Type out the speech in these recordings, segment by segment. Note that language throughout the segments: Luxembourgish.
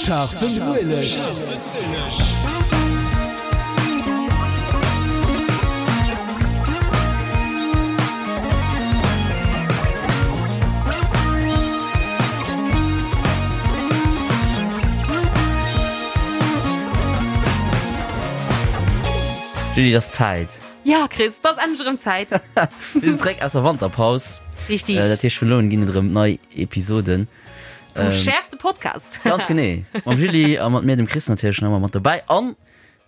Scharfen Ueleg. Julie, et ass Zäit. Ja, Chris, et ass endlech erëm Zäit. Mir sinn zeréck aus der Wanterpaus. Richtig. Äh, dat heescht, vun elo un ginn et erëm nei Episoden. Vum schäerfste Podcast. Ganz genee. Mam Julie a mat mir, dem Chris natierlech, nach ëmmer mat dobäi. An,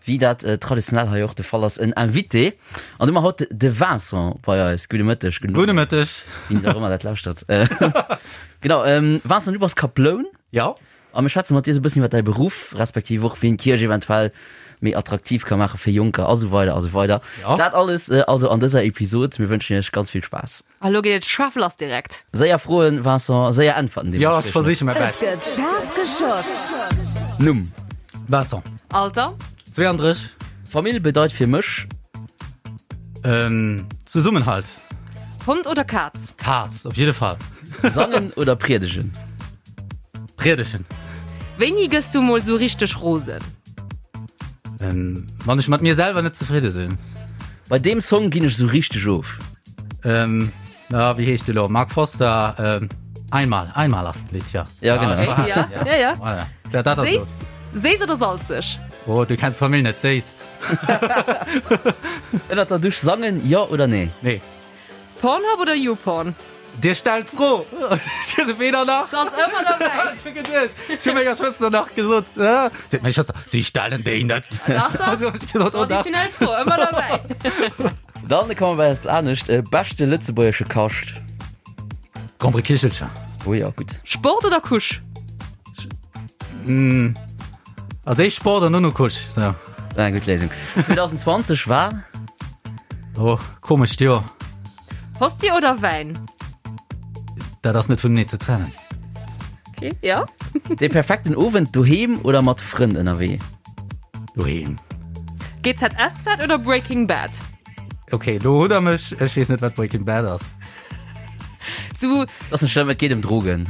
wéi dat äh, traditionell hei och de Fall ass, en Invité. An du hu mer haut de Vincent bei eis. Gudde Mëtteg. Gudde Gudde Mëtteg. Wien och ëmmer dat lauschtert. Äh, genau, ähm, Vincent, du bass Kaploun. Ja. A mir schwätze mat dir esou e bëssen iwwer däi Beruff, respektiv och wéi een d'Kierch eventuell méi attraktiv ka maache fir Jonker a sou weider a sou weider. Ja. Dat alles also an dëser Episod. Mir wënschen iech ganz vill Spaass. A lo geet et schaarf lass direkt. Séier Froen, Vincent, séier Äntwerten Ja, ech versiche mäi Et Bescht. gëtt schaarf geschoss. Numm. Vincent. Alter. 32. Famill bedeit fir mech. Ähm, Zesummenhalt. Hond oder Kaz? Kaz, op jidde Fall. Sangen oder priedegen? Priedegen. Wéini gëss du mol sou richteg rosen? Ähm, wann ech mat mir selwer net zefridde sinn. Bei deem Song ginn ech sou richteg of. Ähm, ah, wéi heescht de lo? Mark Foster, ähm, Einmal, einmal ass d'Lidd, ja. Ja, genau. das war- Ja, ja, ja. Voilà. Ja, dat ass Séiss, lo. séiss oder salzeg? Oh, du kenns d'Famill net, séiss. Ënnert der Dusch sangen, jo oder nee? Nee. Pornhub oder YouPorn? Dir stellt d'Fro! Ech hu se weder nach. Se ass ëmmer derbäi. Ech hu geduecht, ech hu menger Schwëster nach gesot, äh, seet meng Schwëster, si stellen déi net. Dach, dach. Also hu ech gesot, oh dach. Traditionell Fro, ëmmer derbäi. Dann komme mer bei eppes anescht, Beschte lëtzebuergesche Kascht? Gromperekichelcher. Oh jo, gutt. Sport oder Couche? Als éischt Sport an dono Couche, sou. War eng gutt Léisung. 2020 war? Oh, komescht Joer. Hostie oder Wäin? Dat ass net vunenee ze trennen. Okay, ja. Dee perfekten Owend, doheem oder mat Frënn ënnerwee? Doheem. GZSZ oder Breaking Bad? Okay, lo hutt der mech. Ech weess net, wat Breaking Bad ass. Zu Ass net schlëmm, et geet ëm Drogen.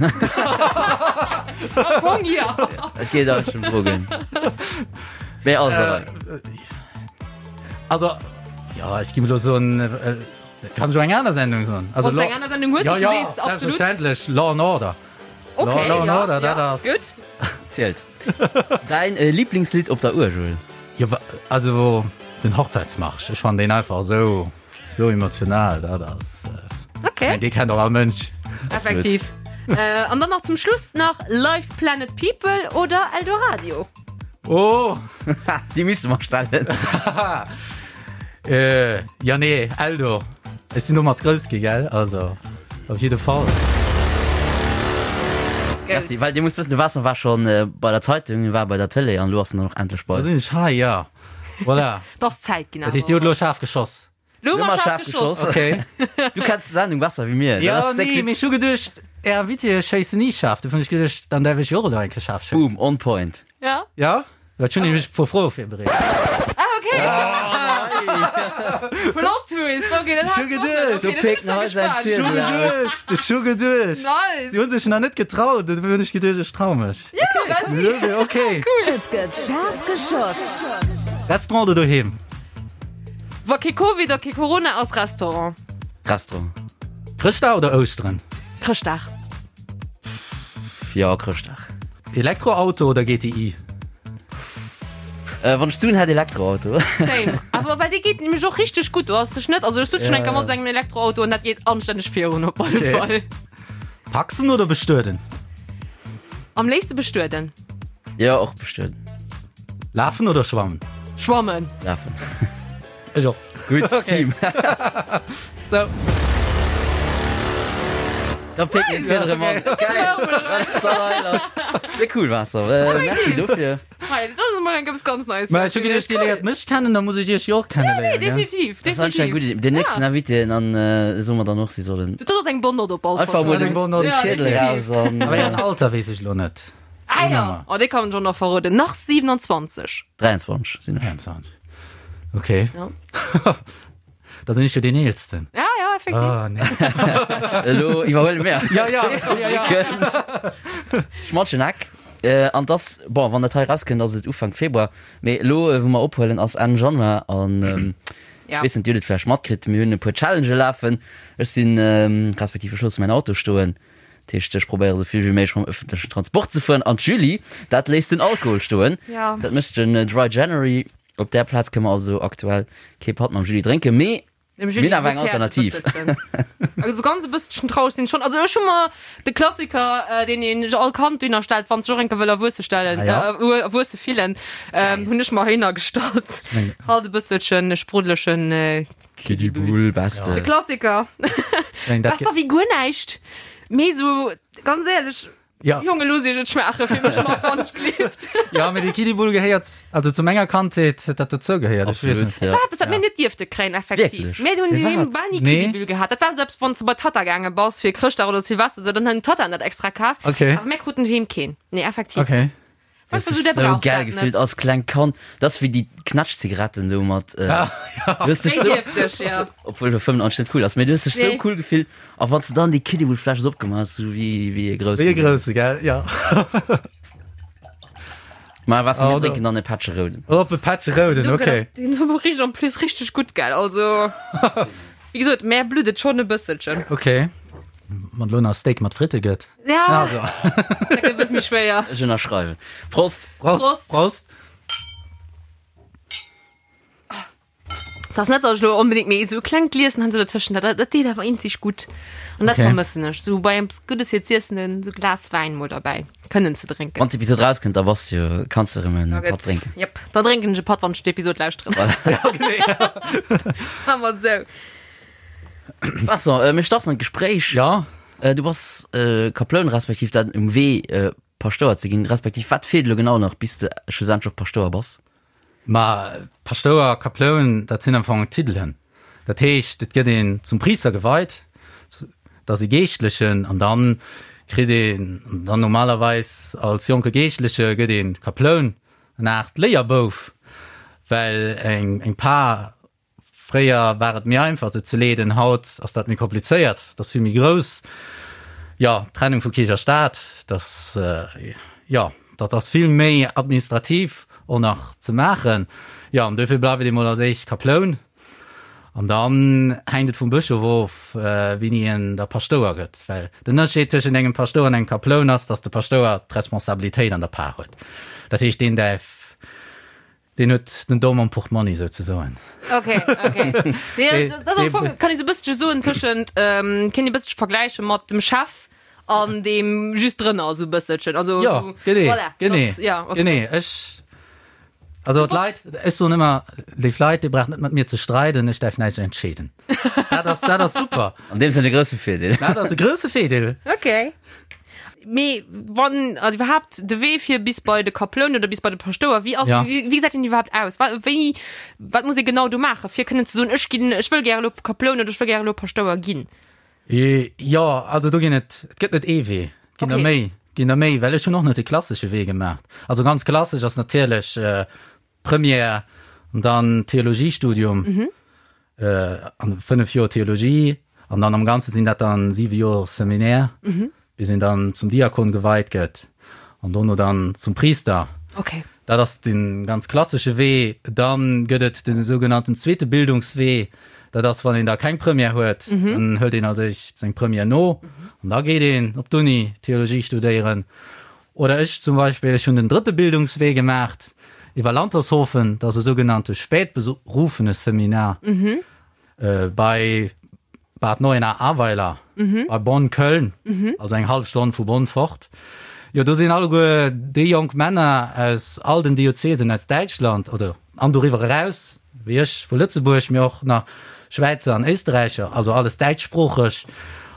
Am Fong, ja. Et geet eigentlech ëm Drogen. Mee also. Also, jo, ech gi elo soen, kann ech och eng aner Sendung soen? Also, Wann s eng aner Sendung hues, ja, déi s ja, du sees, absolut. Selbstverständlech, Law and Order. Okay, Law and ja, Order, dat ja, ass. gutt. Zielt. Däin Liblingslidd op der Uergel? Jo, also den Hochzeitsmarsch. Ech fannen deen einfach esou, esou emotional. Dat ass. Okay. Dee kennt och all Mënsch. Effektiv. Äh, an dann nach zum Schluss nach Live Planet People oder Eldoradio? Oh! Déi misste mer stellen. Äh, ja nee, Eldo. Ech sinn domat grouss gi, gell? Also, op jidde Fall. Merci, well Dir musst wëssen, de Vincent war schonn bei der Zeitung, war bei der Tëlee an elo ass en dann och endlech bei Da eis. sinn ech hei, ja. Voilà. T'ass Zäit ginn Dat heescht, Dir hutt elo schaarf geschoss. Lo hu Lo mer mer schaarf schaarf geschoss. geschoss. Okay. Du kenns d'Sendung besser wéi mir. Ja, nee, mee ech hu geduecht, Är Invitéë schéissen ni schaarf. Dofir hunn ech geduecht, dann däerf ech jo och elo eng Kéier schaarf schéissen. Boom, on point. Ja. Ja? Well ech hunn nämlech e puer Froe virbereet. Ah, okay. Plot Twist, okay, dat Ech hu hat geduecht. Do péckt en hei säin Ech hu Ziedel aus. geduecht, ech hu geduecht. Nice. Si hu sech nach net getraut, dofir hunn ech geduecht, ech trau mech. Ja, vas-y. Okay. Cool. Et gëtt schaarf geschoss. Restaurant oder doheem? Wa kee Covid a kee Corona ass, Restaurant. Restaurant. Chrëschtdag oder Ouschteren? Chrëschtdag. Jo, Chrëschtdag. Elektroauto oder GTI? Äh, wann ech d'Suen hätt, Elektroauto. Same. Awer well dee geet nämlech och richteg gutt. Do ass sech net, also ech sutz schon eng Kéier mat sengem Elektroauto an dat geet anstänneg virun op alle Okay. Fall. Paxen oder bestueden? Am léifste bestueden. Jo, och bestueden. Lafen oder schwammen? Schwammen. Lafen. Ech och. Gutt Okay. Team. So. Da picken den Ziedel erëm an. Geil. Sehr cool Vincent. Äh, merci dofir. Hei, dat ass emol eng eppes ganz Neies. Mä ech hu geduecht, Dir léiert mech kennen, da muss ech Iech jo och kenneléieren. Nee, definitiv. Dat ass anscheinend eng gutt Idee. Den nächsten Invité an äh, soe mer dann och, si sollen Dat ass eng bonne Note op alle Fall. einfach mol Eng den, bonne Note. den Ja, Ziedel definitiv. raus an Awer Ären äh, Alter weess ech elo net. Ah ja, Nummer. oh, dee kann ech och nach verroden. Nach 27. 23 sinn ech. 23. Okay. Ja. Da sinn ech jo deen Eelsten. Ja, ja, effektiv. Oh, nee. Elo iwwerhuele mir. Ja, ja, ja, ja. Schmatschen Eck. An dass, bon, wann dat hei erauskënnt, ass et Ufank Februar, mee elo, wou mer ophuelen, ass Enn Januar an ech weess net, Dir hutt et vläicht matkritt, mir hunn e puer Challengë lafen. Ech sinn, respektiv ech loosse mäin Auto stoen, dat heescht, ech probéiere sou vill wéi méiglech mam ëffentlechen Transport ze fueren an d'Julie, dat léisst den Alkohol stoen. Dat mécht den Dry January. Op där Plaz kënne mer also aktuell kee Patt mam Julie drénken, mee Dem Mir Julie hunn awer eng huet d'Häerz e Alternativ. bësselchen. Also ganz e bësselchen traureg sinn ech schonn. Also ech hu mer de Klassiker, äh, deen een all Kand dunner stellt, wann sech och enke wëll erwuesse stellen, Ah, ja. äh, erwuesse fillen, ähm, hunn ech mer heihinner gestallt. Meng- Halt e bësselchen e spruddelechen äh, Kiddie Bull, beste. De Klassiker. Meng, dat Besser wéi guer näischt. Mee sou, ganz éierlech, Ja. Jonge looss iech et schmaachen, fir mech mat wann ech gleeft. Ja, mee de Kiddie-Bull gehéiert, also zu menger Kandheet huet dat dozou gehéiert. Ech weess Absolut, net. ja. War eppes, wat mir net dierfte kréien, effektiv. Wierklech? Mir hunn Firwat? doheem bal ni Nee. Kiddie-Bull gehat. Dat war esou eppes, wann s de bei d'Tatta gaange bass fir Chrëschtdag oder Silvester, esou, dann hunn d'Tattaen dat extra kaf. Okay. Awer mir kruten doheem keen. Nee, effektiv. Okay. Du Weißt hast du, dich der so braucht geil dat gefillt net. als klengt Kand. Das ist wie die Knatschzigaretten do mat. Äh, du hast dich Déi so, dierft ech, ja. obwohl du 95 net cool ass, mee du hast dich so Nee. cool gefillt. A wann s du dann déi Kiddie-Bull-Fläsch esou opgemaach hast, sou wéi, wéi e groussen. Wéi e grousse, gell? Ja. Ma was, mir Oh, drénken dann e Pättche Rouden. Op e Pättche Rouden, okay. Den richt en plus richteg gutt, gell? Also, wéi gesot, mär blutt et schonn e bësselchen. Okay. Wann elo nach Steak mat Fritte gëtt. Ja, Also. dat gëtt e bësse méi schwéier. Ech ënnerschreiwen. Prost! Prost. Prost. Prost. Dat ass net, datt ech elo onbedéngt, mee esou e klengt Glieschen han se dertëschent, dat, dat deet awer eenzeg gutt. An dat Okay. vermëssen ech, esou bei eppes Guddes fir z'iessen, en esou Glas Wäin mol derbäi kënnen ze drénken. Wann d'Episod rauskënnt, da bass du jo, kanns du erëm en Da Patt gëtt- drénken. Jep, da drénken ech e Patt, wann ech d'Episod lauschteren. Maache mer et esou. Vincent, äh, mir starten an d'Gespréich. Ja. Äh, du bass äh, Kaploun, respektiv dat um Wee äh, Paschtouer ze ginn, respektiv wat feelt elo genau nach, bis de schlussendlech och Paschtouer bass? Ma Paschtouer, Kaploun, dat sinn am Fong Titelen. Dat heescht, et gëtt een zum Priister geweit, dat ass ee Geeschtlechen, an dann kritt een dann normalerweis als jonke Geeschtleche gëtt een Kaploun, en Aart Léierbouf, well eng eng Par Fréier war et méi einfach se ze leeden, haut ass dat méi komplizéiert, et ass vill méi grouss. Jo, d'Trennung vu Kierch a Staat, dat, jo, dat ass vill méi administrativ och nach ze maachen. Jo, an duerfir bleift ee mol als éischt Kaploun an dann hänkt et vum Bëschof of, wéini een da Paschtouer gëtt. Well den Ënnerscheed tëschent engem Paschtouer an engem Kaploun ass, datt de Paschtouer d'Responsabilitéit an der Par huet. Dat heescht, deen däerf Deen huet den Domm am Portmonni souzesoen. Ok, ok. Nee, dat ass am Fong, kann ee sou e bësselche soen, tëschent, kéint ee bësselche vergläiche mat dem Chef an deem just drënner, sou e bësselchen. Also, Jo, sou, genee, voilà, genee, das, ja, okay. genee. Ech, also d'Leit, ech soen ëmmer, léif Leit, Dir braucht net mat mir ze streiden, ech däerf näischt entscheeden. Dat ass, dat ass super. An deem Sënn e grousse Virdeel. Dat ass e grousse Virdeel. Ok. Mee wann, also iwwerhaapt de Wee fir bis bei de Kaploun oder bis bei de Paschtouer, wéi ass, Ja. wéi, wéi gesäit deen iwwerhaapt aus? Wa, wéi, wat muss ee genau do maachen, fir kënnen ze soen, ech ginn, ech wëll gäre elo Kaploun oder ech wëll gäre elo Paschtouer ginn? Jo, also do ginn et, et gëtt net ee Wee, et ginn der Okay. méi, et ginn der méi, well ech hunn och net de klassesche Wee gemaach. Also ganz klassesch ass natierlech Première an dann Theologiestudium, an 5 Joer Theologie an dann am Ganze sinn dat dann 7 Joer Seminaire, bis een dann zum Diakon geweit gëtt an dono dann zum Priester. Okay. Dat ass de ganz klassesche Wee. Dann gëtt et de sougenannten zweete Bildungswee. Dat ass, wann een da keng Première huet, dann hëlt een als éischt seng Première no an da geet een op d'Uni Theologie studéieren. Oder ech zum Beispill, ech hunn den drëtte Bildungswee gemaacht iwwer Lantershofen, dat ass e sougenannte Spätberufeneseminar bei Bad Neuenahr-Ahrweiler, bei Bonn-Köln, also eng hallef Stonn vu Bonn fort. Jo, do sinn alleguer déi jonk Männer aus all den Diözesen aus Däitschland oder an doriwwer eraus, wéi ech vu Lëtzebuerg, mee och nach Schwäizer an Éisterräicher, also alles däitschsproocheg.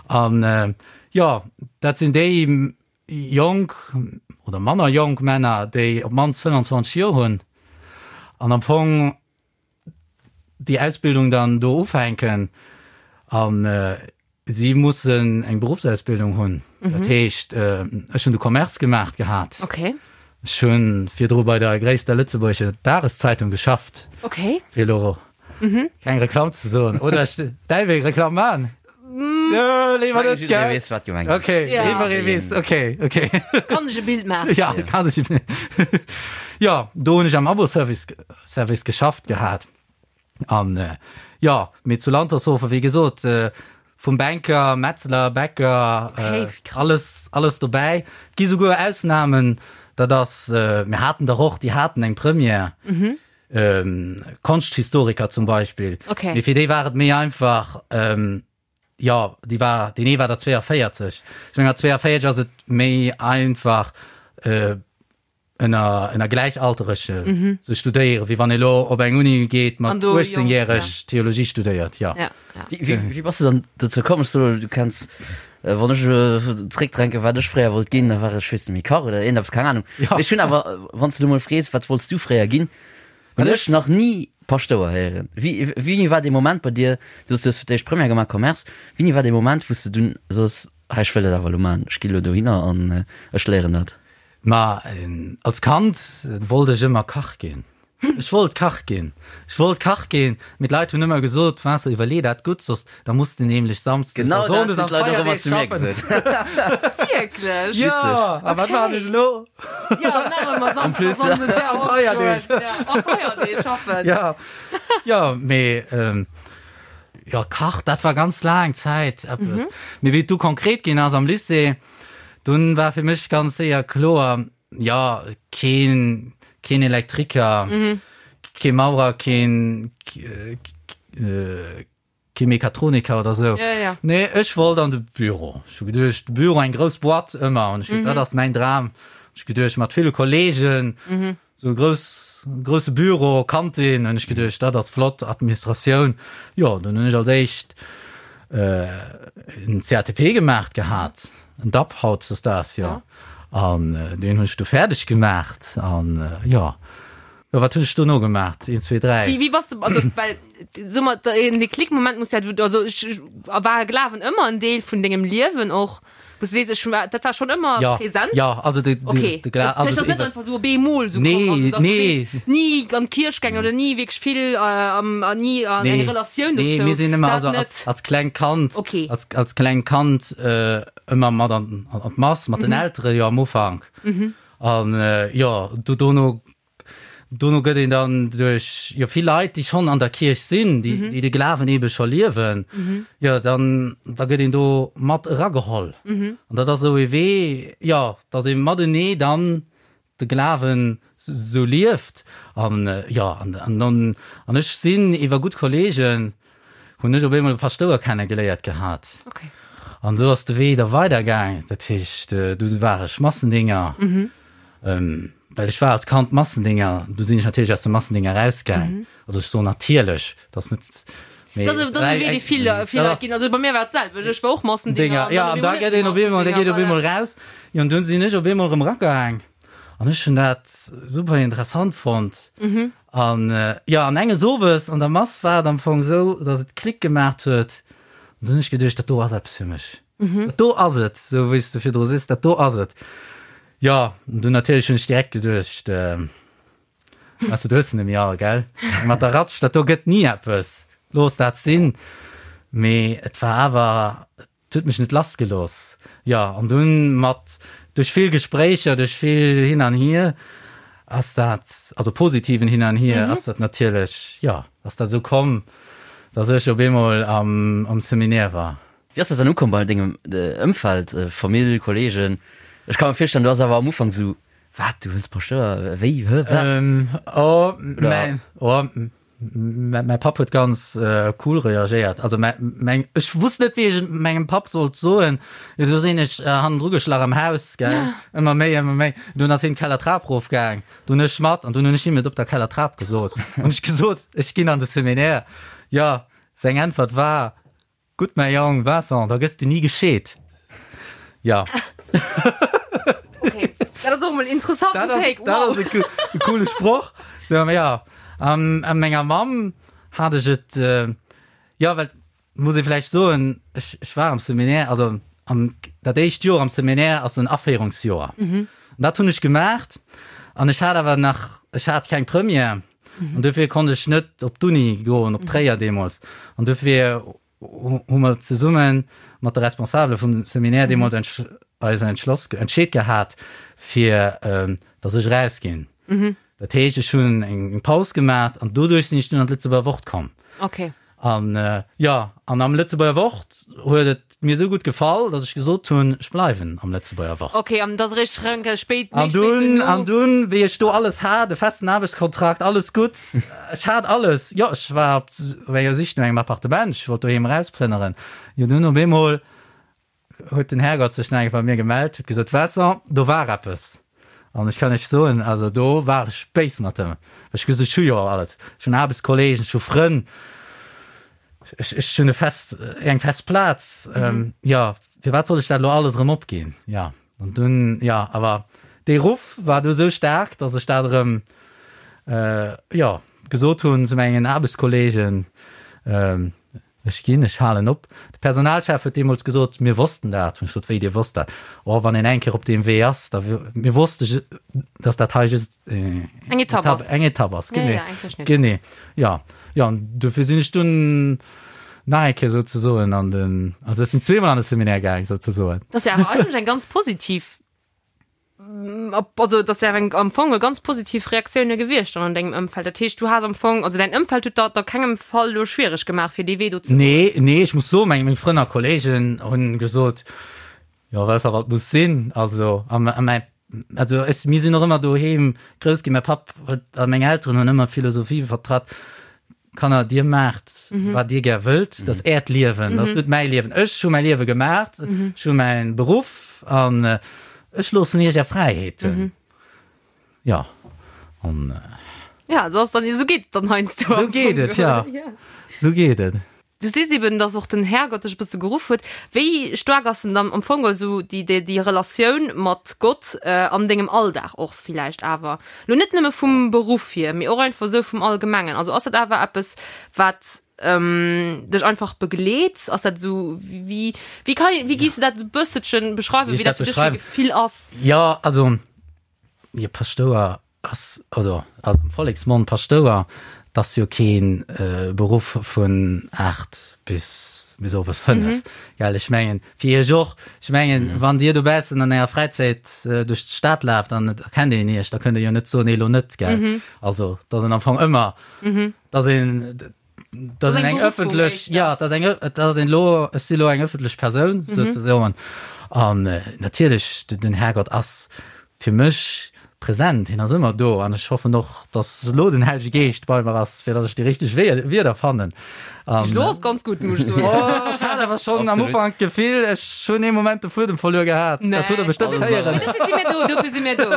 An jo, dat sinn déi Jonk oder manner jonk Männer, déi op d'mannst 25 Joer hunn an am Fong déi Ausbildung dann do ufänken a si mussen eng Beruffsausbildung hunn. Dat heescht, ech hunn de Commerce gemaacht gehat. Ech hu virdru bei der gréisster lëtzebuergescher Dageszeitung geschafft, fir elo keng Reklamm ze soen. Oder ech däerf ee Reklamm maachen? Jo, léiwer net, Jidderee gell? weess, wat gemengt ass. Okay, Ja. jidderee weess, okay, okay. Kann sech e Bild maachen. Ja, kann sech e Bild. Jo, do hunn ech am Abo-Service Service geschafft gehat. An jo, mee zu Lantershofen, wéi gesot, vum Banker, Metzler, Bäcker, Okay, wéi krass. alles, alles dobäi. Et gi souguer Ausnamen, dat ass, mir haten der och, déi haten eng Première, Konschthistoriker zum Beispill. Okay. Mee fir déi war et méi einfach, jo, déi war, deen ee war der 42. Ech meng, mat 42 ass et méi einfach, ënner ënner Gläichalterege mhm. ze studéieren, wéi wann ee lo op eng Uni geet mat 18-järeg ja. Theologie studéiert. Ja. Ja, ja. Wie, wie, wie bass du dann dozou komm? So, du kenns äh, wann ech äh, zréckdränke wat ech fréier wollt ginn, da war ech weess net méi Kach oder irgendeppes, keng Ahnung. Ja. Ech hunn awer, äh, wann du mol frees, wat wollts du fréier ginn, hunn ech nach nie Paschtouer héieren. Wie, wéini war dee Moment bei dir, du hues du hues fir d'éischt Première gemaach, Commerce, wéini war dee Moment, wou s du dunn soos, hei ech wëll dat awer elo maachen, ech gi lo dohinner an äh, ech léieren dat? Ma als Kand wollt ech ëmmer Kach ginn. Ech wollt Kach ginn. Ech wollt Kach ginn, mee d'Leit hunn ëmmer gesot, Vincent, iwwerlee dat gutt, soss da muss de nämlech samsdes a Genau dat sonndes hunn an d'Leit och ëmmer d'Feierdeeg zu mir schaffen. gesot. Wierklech? Jo, a wat maachen ech elo? Jo, nach ëmmer En plus. Samsdes a sonndes, ja, A Feierdeeg. Ja, a Feierdeeg schaffen. Ja, jo, mee jo, Kach, dat war ganz laang Zäit eppes. Mee wéi et du konkret ginn ass am Lycée, Dunn war fir mech ganz séier kloer, jo, keen, keen Elektriker, kee Maurer, keen, kee Mechatroniker oder sou. Ja, ja. Nee, ech wollt an de Büro. Ech hu geduecht, de Büro, eng grouss Boîte ëmmer. An ech hu, dat ass mäin Dram. Ech hu geduecht, mat ville Kollegen, Sou e grouss, grousse Büro, Kantin, hunn ech geduecht, dat ass flott, Administratioun. Jo, dunn hunn ech als éischt en CATP gemaacht gehat, en DAP hautdesdaags, jo. An deen hunn ech du fäerdeg gemaacht an jo. Jo, wat hunn ech dono gemaacht? Een, zwee, dräi. Wéi, wéi bass de, also well, so mer, en Déclic-Moment muss ja, also ech, war Glawen ëmmer en Deel vun dengem Liewen och? Wou s du sees, ech war, dat war schonn ëmmer Ja, präsent? ja, also de, de, Okay. de Gla Dat also ass net de, einfach sou op eemol sou Nee, komm, also dass du nee. sees, ni an d'Kierch gaangen oder ni wierklech vill äh, am, an ni an eng Nee, Relatioun nee, dozou. mir sinn ëmmer, Dat also net. als, als klengt Kand, Okay. als, als klengt Kand äh, ëmmer mat an, an, an d'Mass, mat Mhm. den Eltere jo am Ufank. An äh, jo, du dono Dono gëtt een dann duerch jo vill Leit, déi schonn an der Kierch sinn, déi, mhm. déi de Glawen ebe scho liewen, mhm. jo, dann da gëtt een do mat erageholl. Mhm. An dat ass esou e Wee, jo, datt ee matenee dann de Glawen sou lieft. An äh, jo, an, an, an, an ech sinn iwwer gutt Kollegen, hunn ech op eemol e Paschtouer kennegeléiert gehat. Okay. An esou ass de Wee da weidergaang. Dat heescht, äh, du war ech Massendinger. Mhm. Ähm, well ech war als Kand Massendinger, du sinn ech natierlech aus dem Massendinger rausgaang. Mhm. Also ech soen natierlech, dat ass net mee Dat ass e Wee, dee vill, vill Leit ginn. Also bei mir war et d'selwecht, ech war och Massendinger. Dinger, ja, an da gëtt een op eemol, da geet op eemol raus. Jo, an dunn sinn ech op eemol erëm eragaang. An ech hunn dat super interessant fonnt. Mhm. An jo, an enges Owes an der Mass war et am Fong esou, datt et Klick gemaacht huet. An dunn hunn ech geduecht, dat do ass eppes fir mech. Mhm. Dat do ass et, sou wéi s de virdru sees, dat do ass et. Jo, an dunn natierlech hunn ech direkt geduecht, Weess de, du hues se net méi all, gell? Mat der Ratsch, dat do gëtt ni eppes, looss dat sinn. Mee et war awer, Et huet mech net lass gelooss. Jo, an dunn mat, duerch vill Gespréicher, duerch vill Hin an Hier ass dat, also positiven Hin an Hier, ass dat natierlech, jo, ass dat esou komm, dass ech op eemol am, am Seminaire war. Wéi ass dat dann ukomm bei dengem Ëmfeld, Famill, Kollegen? Ech ka mer virstellen, du ass awer am Ufank esou, Wat, du wëlls Paschtouer, wéi, hë, wat? Oh, mäin, oh, Mäi Papp huet ganz cool reagéiert. Also meng, ech wusst net, wéi ech et mengem Papp sollt soen. Du sinn ech hannendru geschlach am Haus, gell, ëmmer méi, ëmmer méi. Dunn ass hien d'Kellertrap rofgaang, dunn ech mat an dunn hunn ech him et op der Kellertrap gesot. Hunn ech gesot, ech ginn an de Seminaire. Jo, seng Äntwert war, Gutt, mäi Jong Vincent, da gëss de ni gescheet. Ja. Okay, dat ass och emol en interessanten Take. Dat Wow. ass e coole Sproch. So, ja. An a menger Mamm hat ech et, jo, well, muss ee vläicht soen, ech, ech war am Seminaire, also am, dat éischt Joer am Seminaire ass en Aféierungsjoer. An dat hunn ech gemaacht an ech hat awer nach, ech hat keng Première. An dofir konnt ech net op d'Uni goen, op Tréier deemools. An dofir hu mer zesummen. mat de Responsabele vum Seminaire deemools entsch eis entschloss, entscheet gehat, fir dass ech erausginn. Dat heescht, ech hunn eng Paus gemaach an doduerch sinn ech dunn an d'Lëtzebuerger Wort komm. Okay. An jo, an am Lëtzebuerger Wort huet et mir esou gutt gefall, datt ech gesot hunn, ech bleiwen am Lëtzebuerger Wort. Okay, an dat ass eréischt reng spéit, méi spéit dunn, duerno. An dunn, wéi ech do alles hat, e festen Aarbechtskontrakt, alles gutt, ech hat alles, jo, ech war op enger Sich no engem Appartement, ech wollt doheem erausplënneren, jo, dunn op eemol huet den Härgott sech nach eng Kéier bei mir gemellt, huet gesot, Vincent, do war eppes. An ech kann Iech soen, also do war ech béis mat em. Ech hu gesot, ech hu jo alles, ech hunn Aarbechtskolleegen, ech hu Frënn, ech, ech hunn e fest, eng fest Plaz. Jo, firwat soll ech dat elo alles erëm opginn? Jo, an dunn, jo, awer dee Ruff war du esou staark, datt ech dat erëm, jo, gesot hunn zu mengen Aarbechtskolleegen, Ech ginn, ech halen op. De Personalchef huet deemools gesot, mir wossten dat. Hunn ech gesot, wéi, Dir wosst dat? Oh, wann een eng Kéier op deem Wee ass, da, mir wosste, datt dat hei just eng Etapp ass. Eng Etapp ass, genee. Genee, jo. Jo, an dofir sinn ech dunn nach eng Kéier souzesoen an den, also ech sinn zweemol an de Seminaire gaang, souzesoen. Dat ass jo awer eigentlech eng ganz positiv Also dat ass eng am Fong e ganz positiv Reaktioune gewiescht dann an dengem Ëmfeld. Dat heescht du has am Fong, also däin Ëmfeld huet der a kengem Fall elo schwiereg gemaach fir dee Wee do ze goen. Nee, nee, ech muss soen, meng meng Frënn a Kolleegen hunn gesot, jo weess der wat muss sinn. Also a a mäi also ech mir sinn och ëmmer doheem grouss ginn, mäi Papp huet a meng Elteren hunn ëmmer d'Philosophie vertratt, Kanner, dir maacht, wat dir gär wëllt, dat ass äert Liewen, dat ass net mäi Liewen. Ech hu mäi Liewe gemaacht, ech hu mäi Beruff an ech loossen iech är Fräiheeten. Jo, an. Ja, esou ass dann, esou geet et dann heiansdo. Esou geet et, jo, esou geet et. Du sees eben, dass och den Härgott dech e bësse geruff huet. Wéi staark ass denn dann am Fong esou déi, déi, déi Relatioun mat Gott an dengem Alldag och villäicht awer? Lo net nëmme vum Beruff hier, mee och einfach esou vum Allgemengen. Also ass dat awer eppes, wat dech einfach begleet? Ass dat esou, wéi, wéi kann een, wéi giffs du dat esou bësselchen beschreiwen, Wéi wéi ech dat dat fir dech fir beschreiwen? Gefill ass? Jo, also, jo, Paschtouer Ass, also ass am Volleksmond Paschtouer, 't ass jo kee Beruff vun 8 bis bis owes 5, gell? Ech mengen, fir Iech och, ech mengen, wann Dir dobaussen an Ärer Fräizäit duerch d'Stad laaft an et erkennt een Iech, da kënnt Der jo net soen, nee, elo net, gell? Also, 't ass en am Fong ëmmer, 't ass een, dat ass eng ëffentlech, ja, dat ass eng, dat ass een elo, ech si lo eng ëffentlech Persoun mhm. souzesoen. An äh, natierlech den Herrgott ass fir mech präsent, hien ass ëmmer do an ech hoffen och, dass lo den Hellege Geescht bei mer ass, fir dass ech déi richteg Wierder fannen. An, Lo ass ganz gut muss ich soen. Oh, ech hat awer schon am Ufank d'Gefill, ech hunn ee Moment de Fuedem verluer gehat. Nee. Dat huet der bestëmmt héieren. Mee dofir si mir do, dofir si mir do.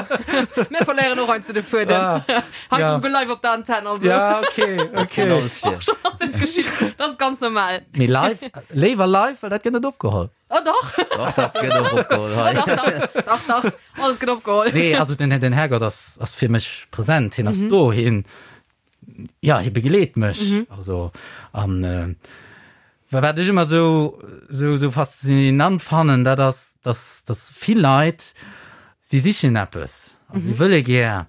Mir verléieren och heiansdo de Fuedem. Ah. Hei Ja. souguer live op der Antenn, also. Ja, okay, okay. Kennt alles vir. Och schon alles geschitt. Dat ass ganz normal. Mee live, léiwer live, well dat gëtt net opgeholl. Oh dach, Dach, dat gëtt och opgeholl oh hei. dach, dach, dach, dach, alles gëtt opgeholl. Nee, also den, den Herrgott ass, ass fir mech präsent, hien ass do, hien, ja, hie begleet mech. Also, an äh, wa- wat ech ëmmer sou, sou, sou faszinant fannen, dat ass, dass, dass vill Leit, si sichen eppes, a si wëlle gär,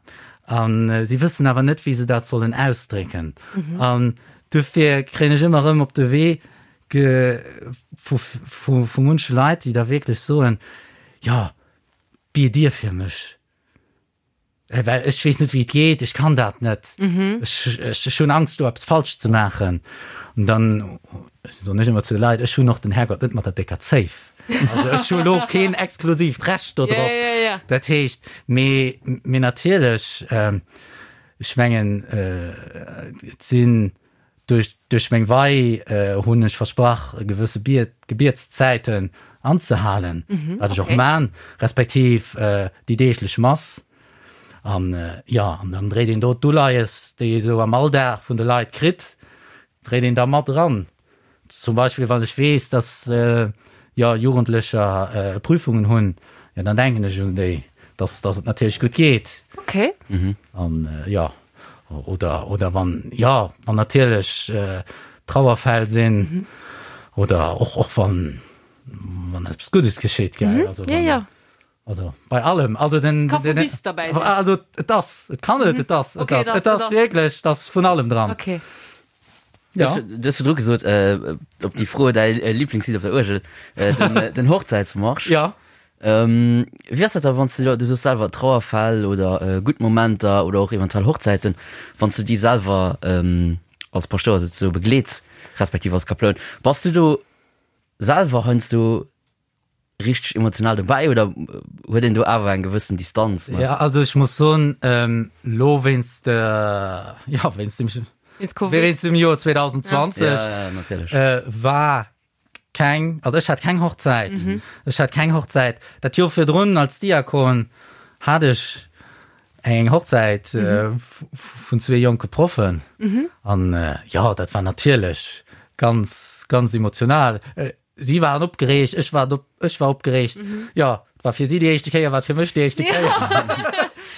an äh, si wëssen awer net, wéi se dat sollen ausdrécken. An dofir kréien ech ëmmer erëm op de Wee ge, vu, vu, vu munche Leit, déi da wierklech soen, jo, biet Dir fir mech. Well ech weess net, wéi et geet, ech kann dat net. Ech, ech, ech hunn Angst, do eppes falsch ze maachen. An dann soen ech ëmmer zu de Leit, ech hunn och den Härgott net mat der décker Zéif. Also ech hu lo keen exklusiivt Recht do drop. Ja, ja, ja. Dat heescht, mee, mee natierlech, ech mengen, et sinn Duerch duerch meng Wei hunn ech versprach, gewësse Biet Gebietszäiten anzehalen, wat ech och man, respektiv déi deeglech Mass. An jo, an dann dréit een do d'Uleies, déi ee sou am Alldag vun de Leit kritt, dréit een da mat eran. Zum Beispill wann ech weess, dass jo Jugendlecher Prüfungen hunn, jo dann denken ech un déi, dass dass et natierlech gutt geet. Okay. An jo, oder oder wann jo wann natierlech Trauerfäll sinn oder och och wann wann eppes Guddes geschitt, gell, also Ja, ja. Also bei allem, also den, Ka vu den, bis derbäi sinn. Also et ass, et kann net, et ass, et Okay, ass, et ass, et ass wierklech, et ass vun allem dran. Okay. Ja. Du hues virdru gesot, op déi Fro, däi Liblingslidd op der Uergel, den Hochzäitsmarsch. Ja. Wéi ass dat da, wann s de, du soos selwer Trauerfäll oder gutt Momenter oder och eventuell Hochzäiten, wann s du déi selwer als Paschtouer souzesoe begleets, respektiv als Kaploun, bass du do selwer heiansdo richteg emotional dobäi oder huet een do awer eng gewëssen Distanz? Ne? Ja, also ech muss soen, ähm, lo wéinst, äh, ja, wéinst dem, Wéinst Covid. wéinst dem Joer 2020 Ja, ja, natierlech. äh, war keng, also ech hat keng Hochzäit. Ech hat keng Hochzäit. Dat Joer virdrun als Diakon hat ech eng Hochzäit äh, vun zwee jonke Proffen. An äh, ja, dat war natierlech ganz, ganz emotional. Äh, Si waren opgereegt, ech war op, ech war opgereegt. Mhm. Ja, et war fir si déi éischte Kéier, war et fir mech déi éischte Kéier.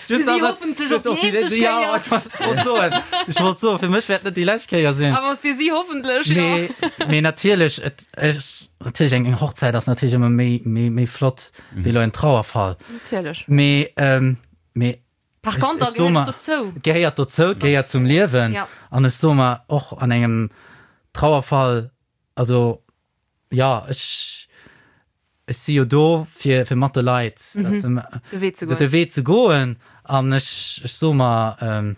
Fir si hoffentlech och déi eenzeg Ja, Kéier. ech wollt soen, ech wollt soen, fir mech wäert net déi lescht Kéier sinn. Awer fir si hoffentlech, jo. Mee, mee natierlech, et, ech, natierlech eng, eng Hochzäit ass natierlech ëmmer méi, méi, méi flott wéi elo en Trauerfall. Natierlech. Mee, ähm, mee Par ech, contre, ech so gehéiert mer, dozou. et gehéiert dozou, et gehéiert zum Liewen. Ja. An ech soe mer, och an engem Trauerfall, Also jo, ech ech si jo do fir fir mat de Leit dat ze De Wee ze goen. de Wee ze goen an ech ech soe mer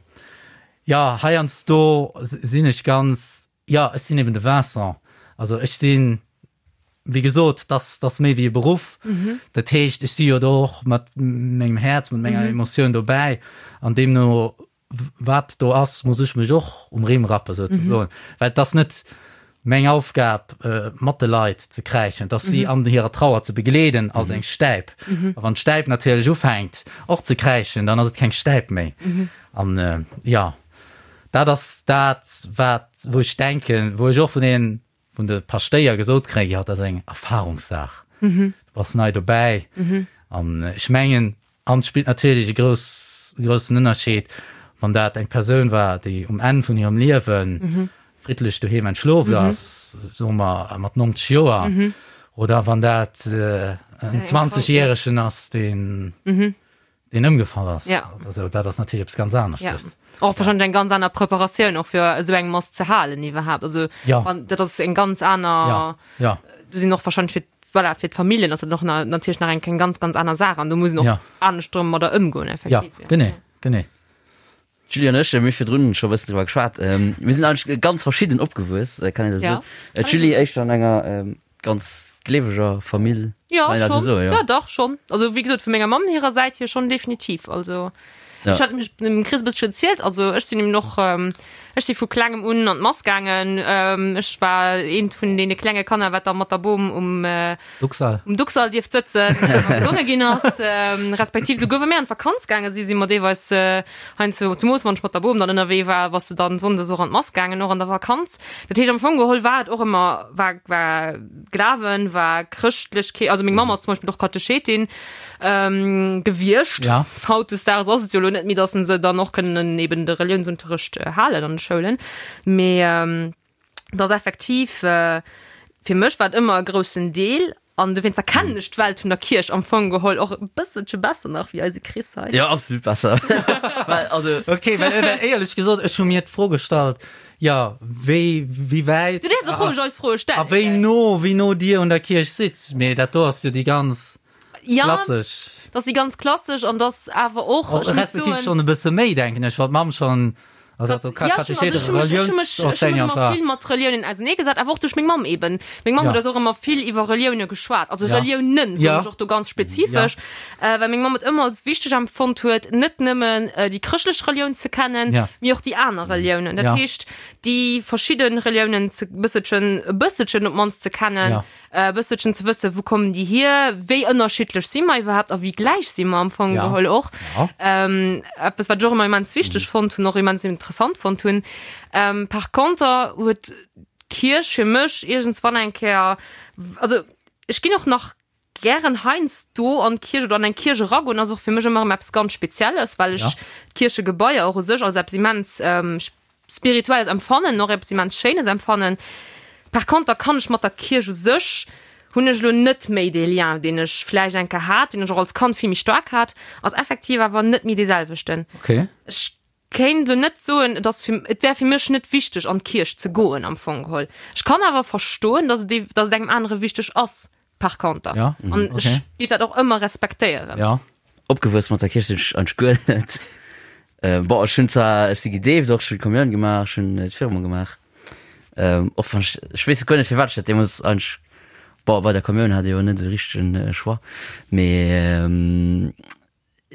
jo heiansdo sinn ech ganz jo ech sinn eben de Vincent. Also ech sinn wéi gesot dass dass méi wéi e Beruff. Dat heescht ech si jo do och mat mengem Häerz, mat menger Emotioun dobäi an deemno wat do ass, muss ech mech och um Rimm rappen, souzesoen. Well et ass net meng Aufgab, mat de Leit ze kräischen, et ass si an hirer Trauer ze begleeden als eng Stäip. A wann d'Stäip natierlech ufänkt och ze kräischen, dann ass et keng Stäip méi. An jo, dat ass dat, wat, wou ech denken, wou ech och vun deenen vun de Paschtéier gesot kréien, jo, dat ass eng Erfahrungssaach, du bass nei dobäi. An ech mengen, an et spillt natierlech e grouss, groussen Ënnerscheed, wann dat eng Persoun war, déi um Enn vun hirem Liewe friddlech doheem entschloft ass, soe mer mat 90 Joer, oder wann dat en 20 Järegen ass, deen deen ëmgefall ass. Ja. Also, dat ass natierlech eppes ganz aneschtes. Ja. Och wahrscheinlech eng ganz aner Preparatioun och fir esou eng Mass ze halen iwwerhaapt. Also ja. wann, dat ass eng ganz aner ja. Ja. Du sinn och wahrscheinlech fir voilà, fir d'Familljen ass dat och na, natierlech nach eng eng ganz ganz aner Saach an do muss een och ja. anescht domadder ëmgoen effektiv. Ja, genee, genee. D'Julie an ech, mir hu virdrun scho e bëssen driwwer geschwat, mir sinn eigentlech ganz verschidden opgewuess, kann een dat Ja. esou soen? D'Julie éischter an enger ganz gleeweger Famill, Ja, kann een dat esou schon. soen, jo? Ja, dach, schon. Also, wéi gesot, vu menger Mamm hirer Säit hier schon definitiv. Also, Ja. ech hat mech dem Chris e bësschen erzielt, also ech sinn eben och, ech si vu klengem un an d'Mass gaangen, ech war eent vun deene klenge Kanner, wat da mat der Bom um, Duxall. Um Duxall dierft sëtzen a gesonge ginn ass, respektiv souguer wa mir an d'Vakanz gaange si, si mer deelweis heiansdo, zemoos wann ech mat der Bom dann ënnerwee war, bass de dann sonndes och an d'Mass gaangen, och an der Vakanz. Dat heescht am Fong geholl war et och ëmmer, war, war Glawen, war Chrëschtlechkeet, also meng Mamm ass zum Beispill och Katechetin gewiescht. Ja. Hautdesdaags ass et jo elo net méi, datt se dann och kënnen eben de Reliounsunterrecht halen an de Schoulen, mee. dass effektiv äh, fir mech war et ëmmer e groussen Deel an dowéinst erkennen ech d'Welt vun der Kierch am Fong geholl och e bësselche besser nach wéi eise Chris hei. Ja, absolut besser. Well, also, Okay, well, well éierlech gesot, ech hu mir d'Fro gestallt, jo, wéi, wéi wäit Du däerfs och roueg eis Froe a stellen, wéi gell? no, wéi no Dir un der Kierch sidd. Mee dat do ass jo déi ganz Ja, klassesch. dat ass déi ganz klassesch an dass awer och, Oh, ech muss respektiv soen, schonn e bësse méi, denken ech, well d'Mamm schonn also Ja, schon, also ech hu mech, ech hu mech, ech hu mech ëmmer vill mat Reliounen auserneegesat, awer och duerch meng Mamm eben. Meng Mamm Ja. huet eis och ëmmer vill iwwer Relioune geschwat, also Ja. Reliounen, soen Ja. ech och do ganz spezifesch, äh, well meng Mamm et ëmmer als wichteg empfonnt huet, net nëmmen äh, déi chrëschtlech Relioun ze kennen, Ja. mee och déi aner Reliounen. Dat Ja. heescht, déi verschidde Reliounen ze bësselchen, e bësselchen op d'mannst ze kennen, Ja. e bësselchen ze wëssen, wou kommen déi hier, wéi ënnerschiddlech si mer iwwerhaapt a wéi gläich si mer am Fong Ja. geholl och. Ja. Ähm, eppes, wat ech och ëmmer immens wichteg fonnt hunn, och immens interessant fonnt hunn. Ähm, par conter huet d'Kierch fir mech iergendswann eng Kéier, also ech ginn och nach gären heiansdo an d'Kierch oder an eng Kierch eragoen, ass och fir mech ëmmer erëm eppes ganz Spezielles, well ech Ja. d'Kierchegebaier och u sech als eppes immens ähm, Spirituelles empfannen, och eppes immens Schéines empfannen. Par conter kann ech mat der Kierch u sech, hunn ech elo net méi dee Lien, deen ech vläicht eng Kéier hat, deen ech och als Kand vill méi staark hat, ass effektiv awer net méi dee selwechten. Okay. Ech. Kéint elo net soen, et ass fir, et wär fir mech net wichteg an d'Kierch ze goen am Fong geholl. Ech kann awer verstoen, dass et, dass et engem anere wichteg ass par conter. Ja, An okay. ech géif dat och ëmmer respektéieren. Ja. Opgewuess mat der Kierch sinn ech eigentlech guer net. Bon, ech hunn zwar, ech si gedeeft och, ech hunn d'Kommioun gemaach, ech hunn d'Firmung gemaach. Och wann ech, ech weess guer net firwat ech dat deemools eigentlech, bon, bei der Kommioun hat ee jo net esou richtegen Choix, mee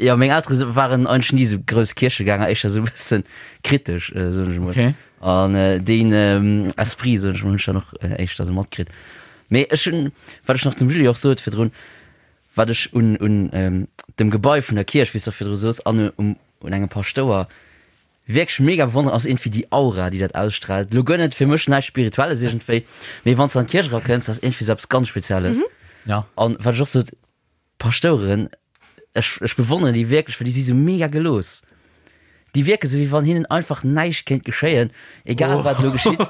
Jo, meng Eltere waren eigentlech ni esou grouss Kierchegänger, éischter esou e bëssen kritesch, soen ech emol. Okay. An deen Esprit, soen ech emol, hunn ech dann och éischter esou matkritt. Mee ech hunn, wat ech nach dem Julie och sot virdrun, wat ech un, un dem Gebai vun der Kierch, wéi s de och virdru soos, an um, un engem Paschtouer wierklech mega bewonneren, ass iergendwéi déi Aura, déi dat ausstrahlt. Elo guer net fir mech näischt Spirituelles iergendwéi, mee wann s de an d'Kierch erakënns, dat ass iergendwéi esou eppes ganz Spezielles. Ja. An wat ech och sot, D'Pastouren, ech, ech bewonneren déi wierklech, well déi si sou mega gelooss. Déi wierke sou, wéi wann hinnen einfach näischt kéint geschéien, egal wat elo geschitt.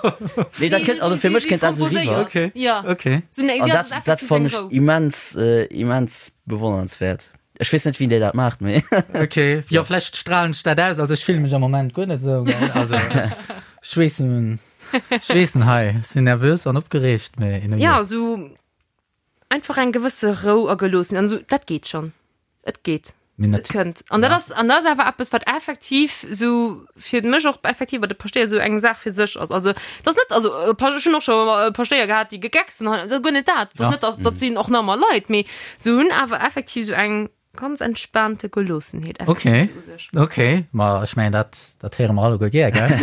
Nee, dat kënnt, also fir mech kënnt dat sou riwwer. Okay, Ja. okay. So, nee, An ja, dat, dat fannen ech immens, immens bewonnernswäert. Ech weess net, wien déi dat maacht, mee. Okay, jo, vläicht strahlen ech dat aus. Also ech fille mech am Moment guer net esou, gell. Also ech weess, ech weess net hei, ech sinn nervös an opgereegt, mee. Ja, sou Einfach eng gewësse Rou a Geloossen an esou, dat geet schonn. Et geet. Et kënnt. An dat ass, an dat ass awer eppes, wat effektiv esou fir mech och effektiv bei de Paschtéier esou eng Saach fir sech ass. Also, et ass net, also ech hunn och scho Paschtéier gehat, déi gegeckst hunn, also guer net dat. Et ass net, dass, dat sinn och normal Leit, mee se hunn awer effektiv esou eng ganz entspaante Geloossenheet. Okay, okay, ma ech mengen dat, dat héiere mer alleguer gär, gell?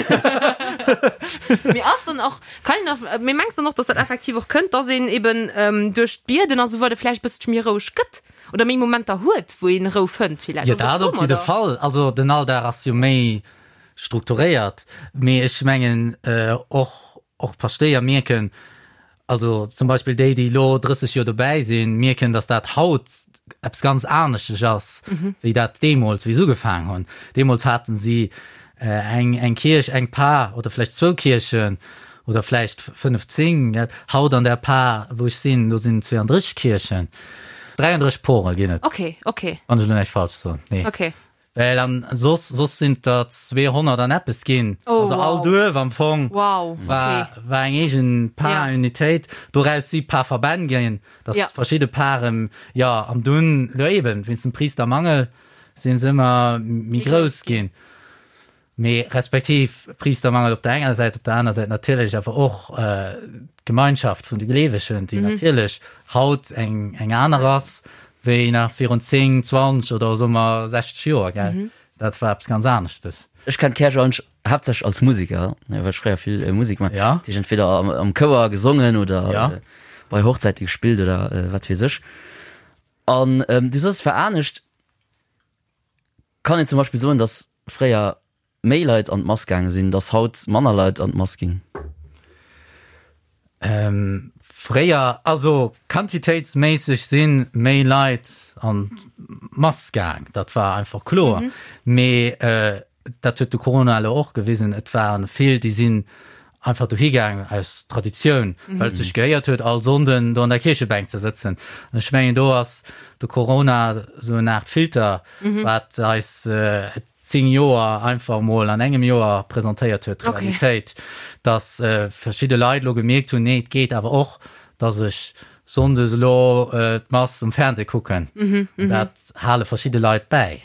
Mee ass dann och, kann een nach, mee mengs dann och, dass dat effektiv och kënnt, dass een eben ähm, duerch d'Bieden a sou weider vläicht bësselche méi roueg gëtt oder méi Momenter huet, wou een Rou fënnt villäicht? Jo, dat op jidde Fall. Also den Alldag ass jo méi strukturéiert, mee ech mengen och, och d'Paschtéier mierken, Also zum Beispill déi, déi elo 30 Joer dobäi sinn, mierken, datt dat haut eppes ganz aneschteg ass, wéi dat deemools, wéi se ugefaangen hunn. Deemools haten si eng, eng Kierch, eng Par oder vläicht zwou Kierchen oder vläicht 15. Haut an der Par, wou ech sinn, do sinn 32 Kierchen. 33 Pore ginn et. Okay, okay. Wann ech elo näischt falsch soen. Nee. Okay. Well an soss, soss sinn et der 200 an eppes ginn. Oh, also all wow. Duerf am Fong wow. war, okay. war eng eegen Parunitéit. Ja. Doraus si Parverbänn ginn, dass ja. verschidde Paren, ja, an dunn, jo eben, wéinst dem Priestermangel sinn se ëmmer méi grouss ginn. Mee respektiv Priestermangel op der enger Säit, op der aner Säit natierlech awer och äh, d'Gemeinschaft vun de Gleewegen, déi mhm. natierlech haut eng, eng aner ass, wéi nach virun 10, 20 oder soe mer 60 Joer, gell? Mhm. Dat war eppes ganz aneschtes. Ech kenn d'Käerch eigentlech haaptsächlech als Musiker, well ech fréier vill Musek gemaach Ja. Dat heescht entweder am, am Chouer gesongen oder Ja. bei Hochzäite gespillt oder wat weess ech. An du soss, et war anescht. Kann een zum Beispill soen, datt fréier méi Leit an d'Mass gaange sinn, datt haut manner Leit an d'Mass ginn? Fréier, also quantitéitsméisseg si méi Leit an d'Mass gaang, dat war einfach kloer. Mee dat huet de Corona elo och gewisen, et ware vill, déi sinn einfach dohi gaang aus Traditioun, well et sech gehéiert huet, all Sonnden do an der Kierchebänk ze sëtzen. An ech mengen, do ass de Corona esou en Aart Filter, wat eis 10 Joer einfach emol an engem Joer presentéiert huet, d'Realitéit, dass verschidde Leit elo gemierkt hunn, nee, et geet awer och, dass ech sonndes elo d'Mass um Fernseh kucken. An dat hale verschidde Leit bäi.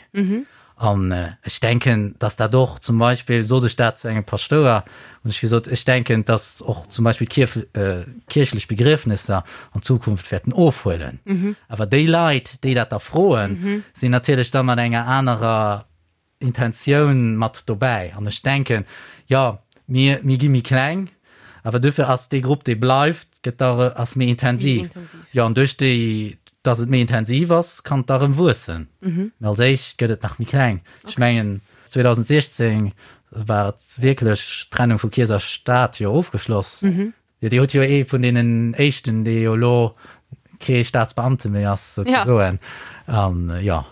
An ech denken, dass dat och zum Beispill, sot ech dat zu engem Paschtouer, hunn ech gesot, ech denken, dass och zum Beispill kierchlech Begriefnesser an Zukunft wäerten ofhuelen. Awer déi Leit, déi dat da froen, sinn natierlech da mat enger anerer Intentioun mat dobäi. An ech denken, jo, mir, mir gi méi kleng, awer duerfir ass dee Grupp, dee bleift, gëtt da, ass méi intensiv. Jo, an duerch déi, dass et méi intensiv ass, kann et da erëm wuessen. Mä als éischt gëtt et nach méi kleng. Ech mengen, 2016 war et wierklech d'Trennung vu Kierch a Staat jo ofgeschloss. Jo, Dir hutt jo ee vun deenen éischten, dee jo elo kee Staatsbeamte méi ass, souzesoen. An jo.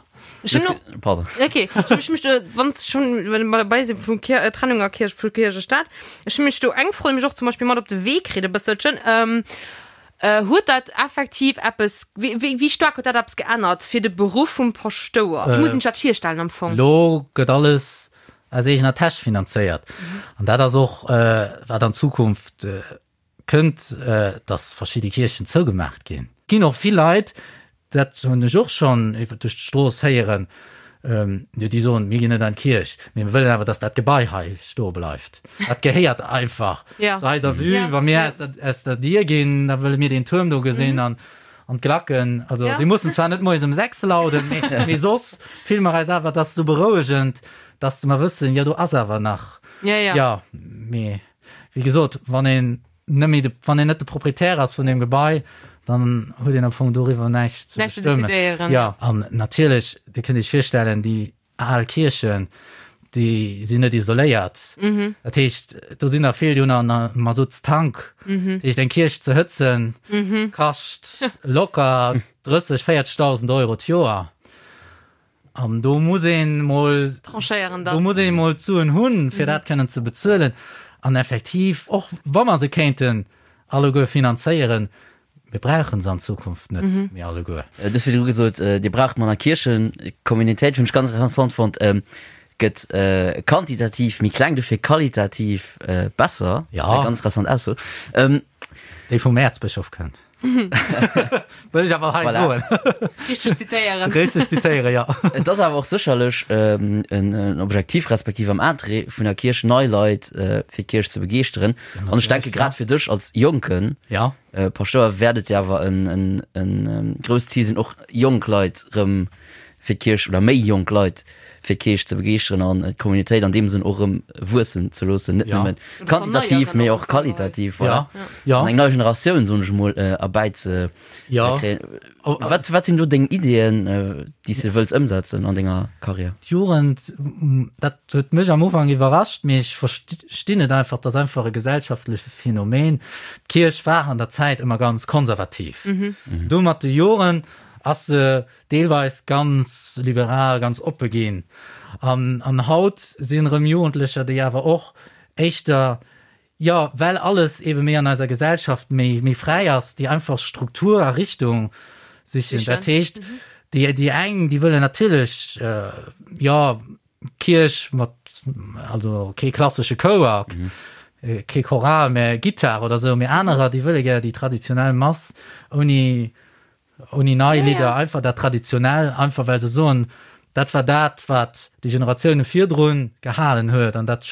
Ech hunn och. Pardon. Okay, ech mech do, wann s schon well mer dabei sinn vu Kier, Trennung a Kierch, vu Kierch a Staat, ech hunn mech do eng Fro, déi mech och zum Beispill mat op de Wee kritt e bësselchen, Huet dat effektiv eppes, wéi, wéi, wéi staark huet dat eppes geännert fir de Beruff vum Paschtouer? Wéi muss een sech dat virstellen am Fong? Elo gëtt alles. aus eegener Täsch finanzéiert. An dat ass och, wat an Zukunft kënnt, dass verschidde Kierchen zougemaacht ginn. Et ginn och vill Leit, dat hunn ech och schonn iwwer duerch d'Strooss héieren, jo déi soen, mir ginn net an d'Kierch, mee mir wëllen awer, dass dat Gebai hei stoe bleift. Dat gehéiert einfach zu eiser Vue. Wa mir aus der, aus der Dier ginn, da wëlle mir deen Tuerm do gesinn an, an d'Glacken. Also si mussen zwar net moies um 6 lauden, mee, mee soss fille mer eis awer, dat ass esou berouegend, dass mer wëssen, jo do ass awer nach. Jo, mee wéi gesot, wann een net méi de, wann een net de Proprietär ass vun deem Gebai, dann huet een am Fong doriwwer näischt ze Näischt ze bestëmmen. decidéieren. Ja, an natierlech, Dir kënnt Iech virstellen, déi al Kierchen, déi sinn net isoléiert. Dat heescht, do sinn der vill, déi hunn en Masuttstank. Dat heescht, eng Kierch ze hëtzen, kascht locker 30, 40.000 Euro d'Joer. An do muss een mol Tranchéieren dann. Do muss een mol d'Suen hunn, fir dat kënnen ze bezuelen. An effektiv, och wa mer se kéinten alleguer finanzéieren, mir brauche se an Zukunft net méi alleguer. Du hues virdru gesot, Dir braucht manner Kierchen. D'Communautéit hunn ech ganz interessant fonnt, gëtt quantitativ méi kleng, dofir qualitativ besser. Ja. Eng ganz interessant Ausso. Déi vum Äerzbëschof kënnt. Wëll ech awer hei Voilà. soen. Richteg zitéieren. Richteg zitéieren, ja. Et ass awer och sécherlech en, en Objektiv respektiv am Interêt vun der Kierch, nei Leit äh, fir d'Kierch ze begeeschteren. An ech denke grad fir dech als jonken Ja. äh, Paschtouer wäert et jo awer en, en, en ähm, grousst Zil sinn, och jonk Leit rëm fir d'Kierch oder méi jonk Leit fir d'Kierch ze begeeschteren an d'Communautéit an deem Sënn och erëm wuessen ze loossen, net Ja. nëmmen quantitativ, mee och qualitativ, voilà. Ja. Ja. An eng nei Generatioun, soen ech emol, erbäi ze Ja. kréien. Oh, Wat, wat sinn do deng Ideeën, déi s de wëlls ëmsetzen an denger Karriär? D'Jugend, dat huet mech am Ufank iwwerrascht, mee ech verstinn et einfach, dat ass einfach e gesellschaftleche Phänomen. D'Kierch war an der Zäit ëmmer ganz konservativ. Du mat de Joren ass se deelweis ganz liberal, ganz oppe ginn. An, an haut sinn erëm Jugendlecher, déi awer och éischter, jo, well alles ebe méi an eiser Gesellschaft méi, méi fräi ass, déi einfach Struktur a Richtung sichen. Dat heescht, déi, déi eng, déi wëllen natierlech, jo, Kierch mat, also kee klassesche Chouer, kee Choral, mä Gittar oder esou, mä anerer, déi wëlle gär déi traditionell Mass ouni, Ouni nei Lidder, einfach dat Traditionell, einfach well se soen, dat war dat, wat déi Generatioune virdrun gehalen huet an dat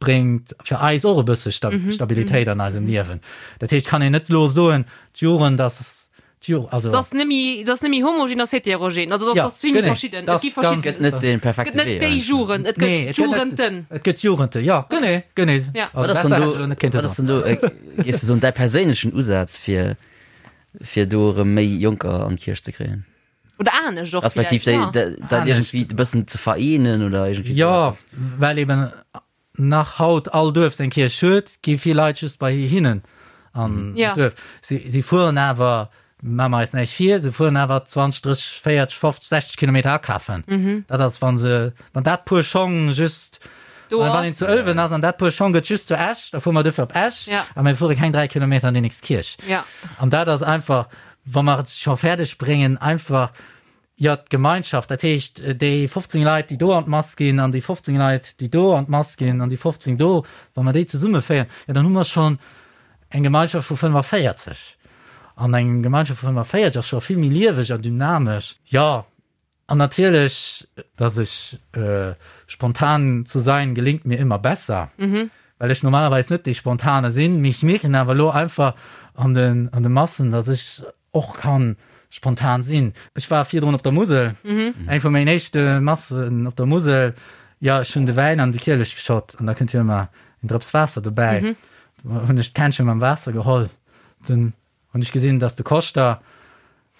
bréngt fir eis och e bësse Stabilitéit an eisem Liewen. Dat heescht, kann een net elo soen, d'Jugend ass, d'Ju-, also. Et ass net méi, et ass net méi homogen, et ass heterogen. Also et ass vill méi verschidden. Et gi verschidden. Et gëtt net dee perfekte Wee. Et gëtt net déi Jugend, et gëtt d'Jugenden. Et gëtt d'Jugenden, jo, genee, genee. Wat ass dann do, wat ass dann do, géifs du soen, däi perséinlechen Usaz fir Fir do erëm méi Jonker an d'Kierch ze kréien. Oder anescht och Respektiv villäicht, déi, ja. dat iergendwéi e bëssen ze vereenen oder iergendwéi Jo, esou eppes. well eben nach haut all Duerf seng Kierch huet, gi vill Leit just bei hinnen an Ja. d'Duerf. Si, si fueren awer, maache mer eis näischt vir, se fueren awer 20, 30, 40, 50, 60 Kilometer akafen. Dat ass, wa se, wann dat Puer Schong just Do Wann ass. een zu Ëlwen ass an dat Puer Schong gëtt just zu Esch, da fuere mer duerfir op Esch Ja. a mir fuere keng 3 Kilometer an déi nächst Kierch. Ja. An dat ass einfach, wa mer et scho fäerdeg bréngen, einfach, jo, d'Gemeinschaft, dat heescht, déi 15 Leit, déi do an d'Mass ginn an déi 15 Leit, déi do an d'Mass ginn an déi 15 do, wa mer déi zesummeféieren, jo, dann hu mer schonn eng Gemeinschaft vu 45. An eng Gemeinschaft vu 45 ass scho vill méi lieweg a dynamesch. Jo, An natierlech, dass ech spontan zu sein gelingt mir immer besser, well ech normalerweis net dee Spontane sinn, mee ech mierken awer elo einfach an den an de Massen, dass ech och kann spontan sinn. Ech war virdrun op der Musel, eng vu mengen éischte Massen op der Musel, jo ech hunn de Wäin an de Kielech geschott an da kënnt jo ëmmer en Drëps Waasser dobäi, hunn ech d'Kännche mam Waasser geholl, dunn Hunn ech gesinn, dass de Koschter,